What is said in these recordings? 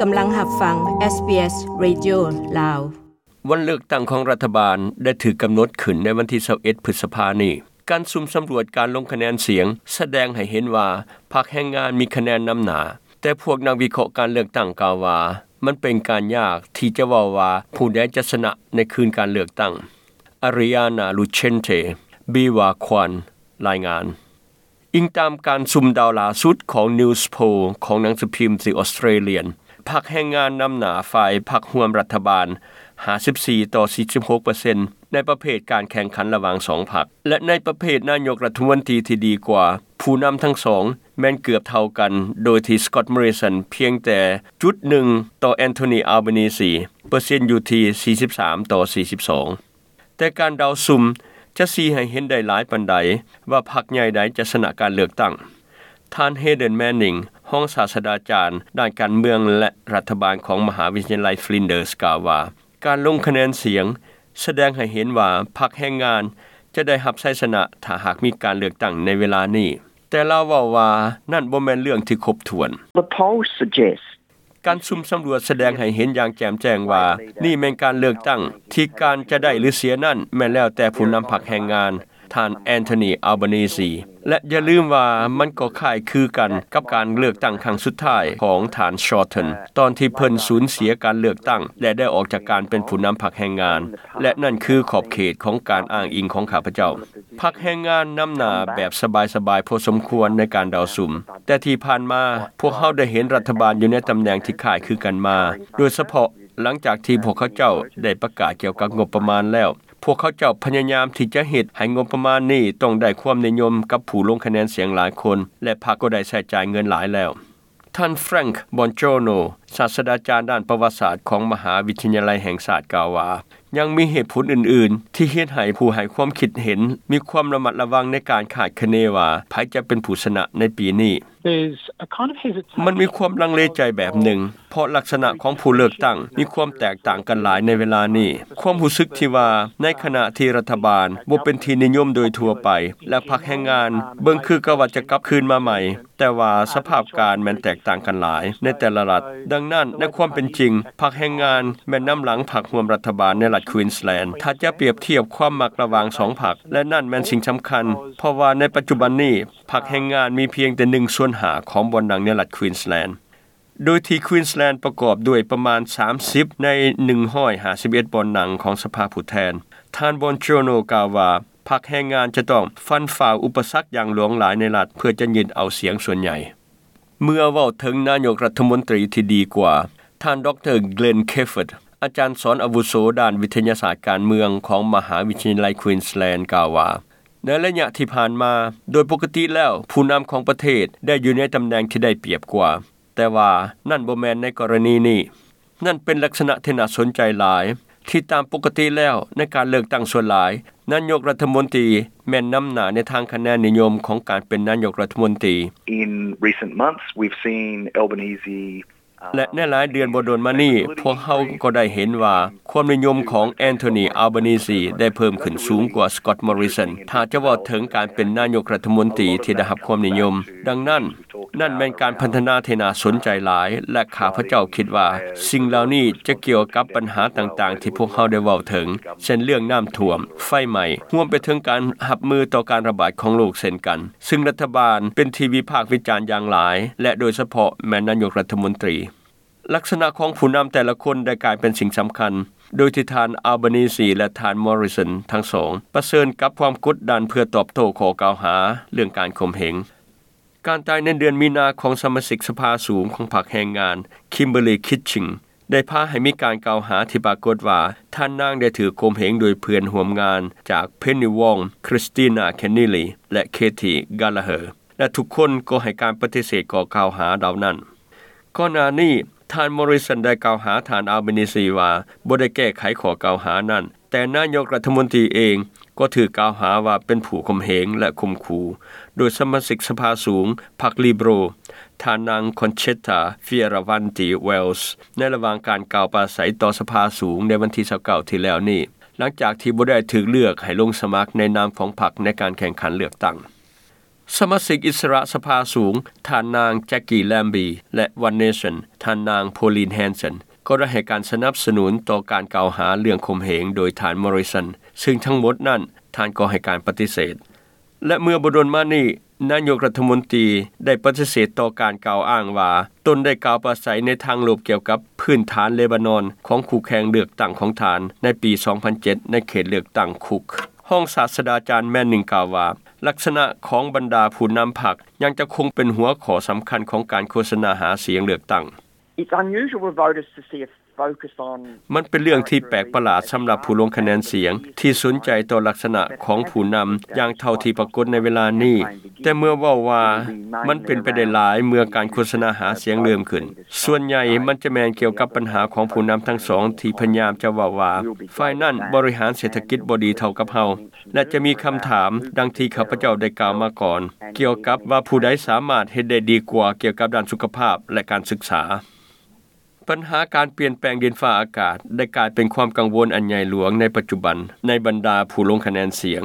ກຳລັງຮັບຟັງ ເອສບີເອສ ເຣດິໂອ ລາວ. ວັນເລືອກຕັ້ງຂອງລັດຖະບານໄດ້ຖືກກຳນົດຂຶ້ນໃນວັນທີຊາວເອັດ ພຶດສະພານີ້. ການສຸ່ມສຳຫຼວດການລົງຄະແນນສຽງສະແດງໃຫ້ເຫັນວ່າພັກແຮງງານມີຄະແນນນຳໜ້າ, ແຕ່ພວກນັກວິເຄາະການເລືອກຕັ້ງກ່າວວ່າ ມັນເປັນການຍາກທີ່ຈະເວົ້າວ່າຜູ້ໃດຈະຊະນະໃນຄືນການເລືອກຕັ້ງ. ອາຣິອານາ ລູເຊນເຕ ບີວາຄວານ ລາຍງານ. ອີງຕາມການສຸ່ມເດົາຫຼ້າສຸດຂອງ Newspoll ຂອງໜັງສືພິມ The Australian, ພັກແຮງງານນຳໜ້າຝ່າຍພັກຮ່ວມລັດຖະບານ ຫ້າສິບສີ່ຕໍ່ສີ່ສິບຫົກເປີເຊັນ ໃນປະເພດການແຂ່ງຂັນລະຫວ່າງສອງພັກ ແລະ ໃນປະເພດນາຍົກລັດຖະມົນຕີທີ່ດີກວ່າ, ຜູ້ນຳທັງສອງແມ່ນເກືອບເທົ່າກັນ, ໂດຍທີ່ Scott Morrison ພຽງແຕ່ຈຸດໜຶ່ງຕໍ່ Anthony Albanese, ເປີເຊັນຢູ່ທີ່ສີ່ສິບສາມຕໍ່ສີ່ສິບສອງ. ແຕ່ການເດົາສຸ່ມຈະຊີ້ໃຫ້ເຫັນໄດ້ຫຼາຍປານໃດວ່າພັກໃຫຍ່ໃດຈະຊະນະການເລືອກຕັ້ງ. ທ່ານ Haydon Manning, ຮອງສາດສະດາຈານດ້ານການເມືອງ ແລະ ລັດຖະບານຂອງມະຫາວິທະຍາໄລ Flinders ກ່າວວ່າ ການລົງຄະແນນສຽງສະແດງໃຫ້ເຫັນວ່າພັກແຮງງານຈະໄດ້ຮັບໄຊຊະນະຖ້າຫາກມີການເລືອກຕັ້ງໃນເວລານີ້, ແຕ່ລາວເວົ້າວ່ານັ້ນບໍ່ແມ່ນເລື່ອງທີ່ຄົບຖ້ວນ. The polls suggest ການສຸ່ມສຳຫຼວດສະແດງໃຫ້ເຫັນຢ່າງແຈ່ມແຈ້ງວ່ານີ້ແມ່ນການເລືອກຕັ້ງທີ່ການຈະໄດ້ຫຼືເສຍນັ້ນແມ່ນແລ້ວແຕ່ຜູ້ນຳພັກແຮງງານ, ທ່ານ Anthony Albanese. ແລະ ຢ່າລືມວ່າມັນກໍຄ້າຍຄືກັນກັບການເລືອກຕັ້ງຄັ້ງສຸດທ້າຍຂອງທ່ານ Shorten ຕອນທີ່ເພິ່ນສູນເສຍການເລືອກຕັ້ງ ແລະ ໄດ້ອອກຈາກການເປັນຜູ້ນຳພັກແຮງງານ, ແລະ ນັ້ນຄືຂອບເຂດຂອງການອ້າງອີງຂອງຂ້າພະເຈົ້າ. ພັກແຮງງານນຳໜ້າແບບສະບາຍໆພໍສົມຄວນໃນການເດົາສຸ່ມ, ແຕ່ທີ່ຜ່ານມາພວກເຮົາໄດ້ເຫັນລັດຖະບານຢູ່ໃນຕຳແໜ່ງທີ່ຄ້າຍຄືກັນມາ, ໂດຍສະເພາະຫຼັງຈາກທີ່ພວກເຂົາເຈົ້າໄດ້ປະກາດກ່ຽວກັບງົບປະມານແລ້ວ. ພວກເຂົາເຈົ້າພະຍາຍາມທີ່ຈະເຮັດໃຫ້ງົບປະມານນີ້ຕ້ອງໄດ້ຄວາມນິຍົມກັບຜູ້ລົງຄະແນນສຽງຫຼາຍຄົນ, ແລະ ພັກກໍໄດ້ໃຊ້ຈ່າຍເງິນຫຼາຍແລ້ວ. ທ່ານ Frank Bongiorno, ສາດສະດາຈານດ້ານປະຫວັດສາດຂອງມະຫາວິທະຍາໄລແຫ່ງຊາດ ກ່າວວ່າ ຍັງມີເຫດຜົນອື່ນໆທີ່ເຮັດໃຫ້ຜູ້ໃຫ້ຄວາມຄິດເຫັນມີຄວາມລະມັດລະວັງໃນການຄາດຄະເນວ່າໃຜຈະເປັນຜູ້ຊະນະໃນປີນີ້. There's a kind of hesitation. ມັນມີຄວາມລັງເລໃຈແບບໜຶ່ງ, ເພາະລັກສະນະຂອງຜູ້ເລືອກຕັ້ງມີຄວາມແຕກຕ່າງກັນຫຼາຍໃນເວລານີ້. ຄວາມຮູ້ສຶກທີ່ວ່າໃນຂະນະທີ່ລັດຖະບານບໍ່ເປັນທີ່ນິຍົມໂດຍທົ່ວໄປ ແລະ ພັກແຮງງານເບິ່ງຄືກັບວ່າຈະກັບຄືນມາໃໝ່, ແຕ່ວ່າສະພາບການແມ່ນແຕກຕ່າງກັນຫຼາຍໃນແຕ່ລະລັດ. ດັ່ງນັ້ນ, ໃນຄວາມເປັນຈິງ, ພັກແຮງງານແມ່ນນຳຫຼັງພັກຮ່ວມລັດຖະບານໃນລັດ Queensland ຖ້າຈະປຽບທຽບຄວາມມັກລະຫວ່າງສອງພັກ, ແລະ ນັ້ນແມ່ນສິ່ງສຳຄັນ, ເພາະວ່າໃນປັດຈຸບັນນີ້ ພັກແຮງງານມີພຽງແຕ່ໜຶ່ງສ່ວນຫ້າຂອງບ່ອນນັ່ງໃນລັດ Queensland, ໂດຍທີ່ Queensland ປະກອບດ້ວຍປະມານສາມສິບໃນໜຶ່ງຮ້ອຍຫ້າສິບເອັດບ່ອນນັ່ງຂອງສະພາຜູ້ແທນ. ທ່ານ Bongiorno ກ່າວວ່າ ພັກແຮງງານຈະຕ້ອງຟັນຝ່າອຸປະສັກຢ່າງຫຼວງຫຼາຍໃນລັດ ເພື່ອຈະຍຶດເອົາສຽງສ່ວນໃຫຍ່. ເມື່ອເວົ້າເຖິງນາຍົກລັດຖະມົນຕີທີ່ດີກວ່າ, ທ່ານ ດຣ Glenn Cafford, ອາຈານສອນອາວຸໂສດ້ານວິທະຍາສາດການເມືອງຂອງມະຫາວິທະຍາໄລ Queensland ກ່າວວ່າ ໃນໄລຍະທີ່ຜ່ານມາ, ໂດຍປົກກະຕິແລ້ວ ຜູ້ນຳຂອງປະເທດໄດ້ຢູ່ໃນຕຳແໜ່ງທີ່ໄດ້ປຽບກວ່າ, ແຕ່ວ່ານັ້ນບໍ່ແມ່ນໃນກໍລະນີນີ້. ນັ້ນເປັນລັກສະນະທີ່ໜ້າສົນໃຈຫຼາຍ, ທີ່ຕາມປົກກະຕິແລ້ວໃນການເລືອກຕັ້ງສ່ວນຫຼາຍ, ນາຍົກລັດຖະມົນຕີແມ່ນນຳໜ້າໃນທາງຄະແນນນິຍົມຂອງການເປັນນາຍົກລັດຖະມົນຕີ. In recent months, we've seen Albanese ແລະ ໃນຫຼາຍເດືອນບໍ່ດົນມານີ້, ພວກເຮົາກໍໄດ້ເຫັນວ່າຄວາມນິຍົມຂອງ Anthony Albanese ໄດ້ເພີ່ມຂຶ້ນສູງກວ່າ Scott Morrison ຖ້າຈະເວົ້າເຖິງການເປັນນາຍົກລັດຖະມົນຕີທີ່ໄດ້ຮັບຄວາມນິຍົມ. ດັ່ງນັ້ນ, ນັ້ນແມ່ນການພັດທະນາທີ່ໜ້າສົນໃຈຫຼາຍ, ແລະ ຂ້າພະເຈົ້າຄິດວ່າສິ່ງເຫຼົ່ານີ້ຈະກ່ຽວກັບບັນຫາຕ່າງໆທີ່ພວກເຮົາໄດ້ເວົ້າເຖິງ, ເຊັ່ນເລື່ອງນ້ຳຖ້ວມ, ໄຟໄໝ້, ຮວມໄປເຖິງການຮັບມືຕໍ່ການລະບາດຂອງໂລກເຊັ່ນກັນ. ຊຶ່ງລັດຖະບານເປັນທີ່ວິພາກວິຈານຢ່າງຫຼາຍ ແລະ ໂດຍສະເພາະແມ່ນນາຍົກລັດຖະມົນຕີ. ລັກສະນະຂອງຜູ້ນຳແຕ່ລະຄົນໄດ້ກາຍເປັນສິ່ງສຳຄັນ, ໂດຍທີ່ທ່ານ Albanese ແລະ ທ່ານ Morrison ທັງສອງປະເຊີນກັບຄວາມກົດດັນເພື່ອຕອບໂຕ້ຂໍ້ກ່າວຫາເລື່ອງການຂົ່ມເຫງ. ການຕາຍໃນເດືອນມີນາຂອງສະມາຊິກສະພາສູງຂອງພັກແຮງງານ Kimberley Kitching ໄດ້ພາໃຫ້ມີການກ່າວຫາທີ່ປາກົດວ່າທ່ານນາງໄດ້ຖືກຂົ່ມເຫງໂດຍເພື່ອນຮ່ວມງານຈາກ Penny Wong, Christina Kenneally ແລະ Katie Gallagher ແລະ ທຸກຄົນກໍໃຫ້ການປະຕິເສດຂໍ້ກ່າວຫາເຫຼົ່ານັ້ນ. ກ່ອນໜ້ານີ້, ທ່ານ Morrison ໄດ້ກ່າວຫາທ່ານ Albanese ວ່າບໍ່ໄດ້ແກ້ໄຂຂໍ້ກ່າວຫານັ້ນ, ແຕ່ນາຍົກລັດຖະມົນຕີເອງກໍຖືກກ່າວຫາວ່າເປັນຜູ້ຂົ່ມເຫງ ແລະ ຂົ່ມຂູ່ ໂດຍສະມາຊິກສະພາສູງພັກ Liberal ທ່ານນາງ Concetta Fierravanti-Wells ໃນລະຫວ່າງການກ່າວປາໄສຕໍ່ສະພາສູງໃນວັນທີຊາວເກົ້າ ທີ່ແລ້ວນີ້, ຫຼັງຈາກທີ່ບໍ່ໄດ້ຖືກເລືອກໃຫ້ລົງສະໝັກໃນນາມຂອງພັກໃນການແຂ່ງຂັນເລືອກຕັ້ງ. ສະມາຊິກອິດສະຫຼະສະພາສູງ ທ່ານນາງ Jackie Lambie ແລະ One Nation ທ່ານນາງ Pauline Hanson ກໍໄດ້ໃຫ້ການສະໜັບສະໜູນຕໍ່ການກ່າວຫາເລື່ອງຂົ່ມເຫງໂດຍທ່ານ Morrison ຊຶ່ງທັງໝົດນັ້ນທ່ານກໍໃຫ້ການປະຕິເສດ. ແລະ ເມື່ອບໍ່ດົນມານີ້ ນາຍົກລັດຖະມົນຕີໄດ້ປະຕິເສດຕໍ່ການກ່າວອ້າງວ່າ ຕົນໄດ້ກ່າວປາໄສໃນທາງລົບກ່ຽວກັບພື້ນຖານເລບານອນຂອງຄູ່ແຂ່ງເລືອກຕັ້ງຂອງທ່ານໃນປີສອງພັນເຈັດ ໃນເຂດເລືອກຕັ້ງຄຸກ. ຮອງສາດສະດາຈານ Manning ກ່າວວ່າ ລັກສະນະຂອງບັນດາຜູ້ນຳພັກຍັງຈະຄົງເປັນຫົວຂໍ້ສຳຄັນຂອງການໂຄສະນາຫາສຽງເລືອກຕັ້ງ. It's unusual for voters to see a focus on ມັນເປັນເລື່ອງທີ່ແປກປະຫຼາດສຳລັບຜູ້ລົງຄະແນນສຽງທີ່ສົນໃຈຕໍ່ລັກສະນະຂອງຜູ້ນຳຢ່າງເທົ່າທີ່ປາກົດໃນເວລານີ້, ແຕ່ເມື່ອເວົ້າວ່າມັນເປັນໄປໄດ້ຫຼາຍເມື່ອການໂຄສະນາຫາສຽງເລີ່ມຂຶ້ນ, ສ່ວນໃຫຍ່ມັນຈະແມ່ນກ່ຽວກັບບັນຫາຂອງຜູ້ນຳທັງສອງທີ່ພະຍາຍາມຈະເວົ້າວ່າ ຝ່າຍນັ້ນບໍລິຫານເສດຖະກິດບໍ່ດີເທົ່າກັບເຮົາ ແລະ ຈະມີຄຳຖາມ ດັ່ງທີ່ຂ້າພະເຈົ້າໄດ້ກ່າວມາກ່ອນ ກ່ຽວກັບວ່າຜູ້ໃດສາມາດເຮັດໄດ້ດີກວ່າກ່ຽວກັບດ້ານສຸຂະພາບ ແລະ ການສຶກສາ. ບັນຫາການປ່ຽນແປງດິນຟ້າອາກາດໄດ້ກາຍເປັນຄວາມກັງວົນອັນໃຫຍ່ຫຼວງໃນປັດຈຸບັນໃນບັນດາຜູ້ລົງຄະແນນສຽງ,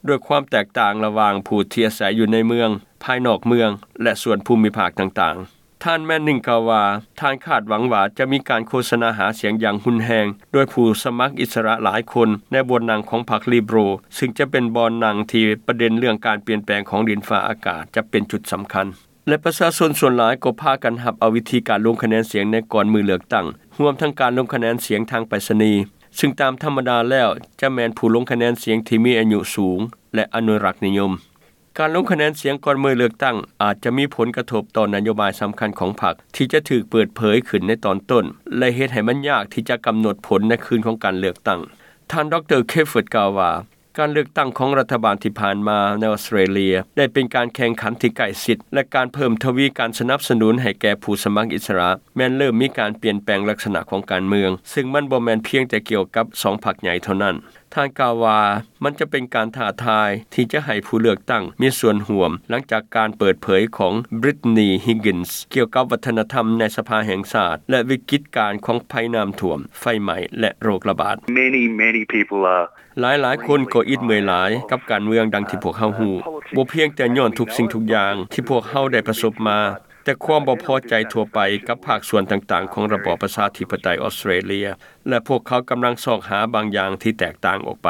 ດ້ວຍຄວາມແຕກຕ່າງລະຫວ່າງຜູ້ທີ່ອາໄສຢູ່ໃນເມືອງ, ພາຍນອກເມືອງ ແລະ ສ່ວນພູມິພາກຕ່າງໆ. ທ່ານ Manning ກ່າວວ່າ ທ່ານຄາດຫວັງວ່າຈະມີການໂຄສະນາຫາສຽງຢ່າງຮຸນແຮງໂດຍຜູ້ສະໝັກອິດສະຫຼະຫຼາຍຄົນໃນບ່ອນນັ່ງຂອງພັກ Liberal ຊຶ່ງຈະເປັນບ່ອນນັ່ງທີ່ປະເດັນເລື່ອງການປ່ຽນແປງຂອງດິນຟ້າອາກາດຈະເປັນຈຸດສຳຄັນ ແລະ ປະຊາຊົນສ່ວນຫຼາຍກໍພາກັນຮັບເອົາວິທີການລົງຄະແນນສຽງໃນກ່ອນມື້ເລືອກຕັ້ງ, ຮວມທັງການລົງຄະແນນສຽງທາງໄປສະນີ, ຊຶ່ງຕາມທຳມະດາແລ້ວຈະແມ່ນຜູ້ລົງຄະແນນສຽງທີ່ມີອາຍຸສູງ ແລະ ອະນຸລັກນິຍົມ. ການລົງຄະແນນສຽງກ່ອນມື້ເລືອກຕັ້ງອາດຈະມີຜົນກະທົບຕໍ່ນະໂຍບາຍສຳຄັນຂອງພັກທີ່ຈະຖືກເປີດເຜີຍຂຶ້ນໃນຕອນຕົ້ນ ແລະ ເຮັດໃຫ້ມັນຍາກທີ່ຈະກຳນົດຜົນໃນຄືນຂອງການເລືອກຕັ້ງ. ທ່ານ ດຣ Clifford ກ່າວວ່າ ການເລືອກຕັ້ງຂອງລັດຖະບານທີ່ຜ່ານມາໃນອອສເຕຣເລຍໄດ້ເປັນການແຂ່ງຂັນທີ່ໃກ້ຊິດ ແລະ ການເພີ່ມທະວີການສະໜັບສະໜູນໃຫ້ແກ່ຜູ້ສະໝັກອິດສະຫຼະແມ່ນເລີ່ມມີການປ່ຽນແປງລັກສະນະຂອງການເມືອງ, ຊຶ່ງມັນບໍ່ແມ່ນພຽງແຕ່ກ່ຽວກັບສອງພັກໃຫຍ່ເທົ່ານັ້ນ. ທ່ານກ່າວວ່າ ມັນຈະເປັນການທ້າທາຍທີ່ຈະໃຫ້ຜູ້ເລືອກຕັ້ງມີສ່ວນຮ່ວມ ຫຼັງຈາກການເປີດເຜີຍຂອງ Brittany Higgins ກ່ຽວກັບວັດທະນະທຳໃນສະພາແຫ່ງຊາດ ແລະ ວິກິດການຂອງໄພນ້ຳຖ້ວມ, ໄຟໄໝ້ ແລະ ໂລກລະບາດ. Many, many people are ຫຼາຍໆຄົນກໍອິດເມື່ອຍຫຼາຍກັບການເມືອງ ດັ່ງທີ່ພວກເຮົາຮູ້, ບໍ່ພຽງແຕ່ຍ້ອນທຸກສິ່ງທຸກຢ່າງທີ່ພວກເຮົາໄດ້ປະສົບມາ, ແຕ່ຄວາມບໍ່ພໍໃຈທົ່ວໄປກັບພາກສ່ວນຕ່າງໆຂອງລະບອບປະຊາທິປະໄຕອອສເຕຣເລຍ ແລະ ພວກເຂົາກຳລັງຊອກຫາບາງຢ່າງທີ່ແຕກຕ່າງອອກໄປ.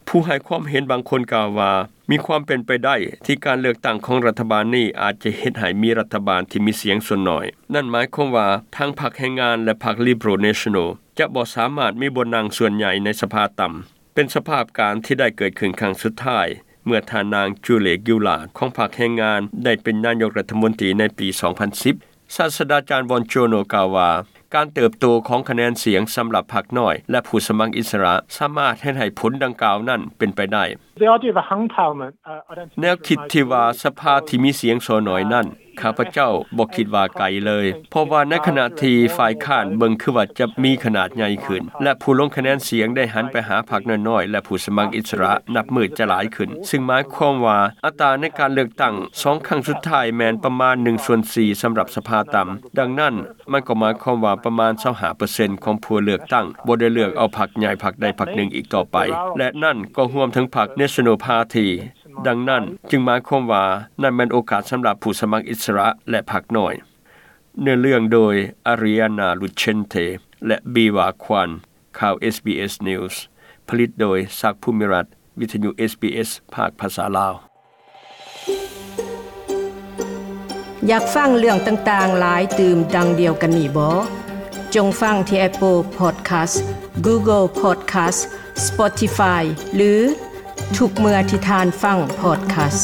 ຜູ້ໃຫ້ຄວາມເຫັນບາງຄົນກ່າວວ່າ ມີຄວາມເປັນໄປໄດ້ທີ່ການເລືອກຕັ້ງຂອງລັດຖະບານນີ້ອາດຈະເຮັດໃຫ້ມີລັດຖະບານທີ່ມີສຽງສ່ວນໜ້ອຍ. ນັ້ນໝາຍຄວາມວ່າທັງພັກແຮງງານ ແລະ ພັກ Liberal National ຈະບໍ່ສາມາດມີບ່ອນນັ່ງສ່ວນໃຫຍ່ໃນສະພາຕ່ຳ, ເປັນສະພາບການທີ່ໄດ້ເກີດຂຶ້ນຄັ້ງສຸດທ້າຍ ເມື່ອທ່ານນາງ Julia Gillard ຂອງພັກແຮງງານໄດ້ເປັນນາຍົກລັດຖະມົນຕີໃນປີສອງພັນສິບ. ສາດສະດາຈານ Bongiorno ກ່າວວ່າ ການເຕີບໂຕຂອງຄະແນນສຽງສຳລັບພັກນ້ອຍ ແລະ ຜູ້ສະໝັກອິດສະຫຼະສາມາດເຮັດໃຫ້ຜົນດັ່ງກ່າວນັ້ນເປັນໄປໄດ້. The idea of a hung parliament, uh, I don't think ແນວຄິດທີ່ວ່າສະພາທີ່ມີສຽງສ່ວນໜ້ອຍນັ້ນ ຂ້າພະເຈົ້າບໍ່ຄິດວ່າໄກເລີຍ, ເພາະວ່າໃນຂະນະທີ່ຝ່າຍຄ້ານເບິ່ງຄືວ່າຈະມີຂະໜາດໃຫຍ່ຂຶ້ນ ແລະ ຜູ້ລົງຄະແນນສຽງໄດ້ຫັນໄປຫາພັກນ້ອຍໆ ແລະ ຜູ້ສະໝັກອິດສະຫຼະ ນັບມື້ຈະຫຼາຍຂຶ້ນ, ຊຶ່ງໝາຍຄວາມວ່າອັດຕາໃນການເລືອກຕັ້ງສອງຄັ້ງສຸດທ້າຍແມ່ນປະມານໜຶ່ງສ່ວນສີ່ສຳລັບສະພາຕ່ຳ. ດັ່ງນັ້ນ, ມັນກໍໝາຍຄວາມວ່າປະມານຊາວຫ້າເປີເຊັນຂອງຜູ້ເລືອກຕັ້ງບໍ່ໄດ້ເລືອກເອົາພັກໃຫຍ່ພັກໃດພັກໜຶ່ງອີກຕໍ່ໄປ, ແລະ ນັ້ນກໍຮວມເຖິງພັກ National Party. ດັ່ງນັ້ນຈຶ່ງໝາຍຄວາມວ່ານັ້ນແມ່ນໂອກາດສຳລັບຜູ້ສະໝັກອິດສະຫຼະ ແລະ ພັກນ້ອຍ. ເນື້ອເລື່ອງໂດຍ Ariana Lucente ແລະ Biwa Kwan. ຂ່າວ SBS News ຜະລິດໂດຍ ສັກ ພູມິລັດ, ວິທະຍຸ SBS ພາກພາສາລາວ. ຢາກຟັງເລື່ອງຕ່າງໆຫຼາຍຕື່ມດັ່ງດຽວກັນນີ້ບໍ? ຈົ່ງຟັງທີ່ Apple Podcast, Google Podcast, Spotify ຫຼື ທຸກເມື່ອທີ່ທ່ານຟັງ podcast.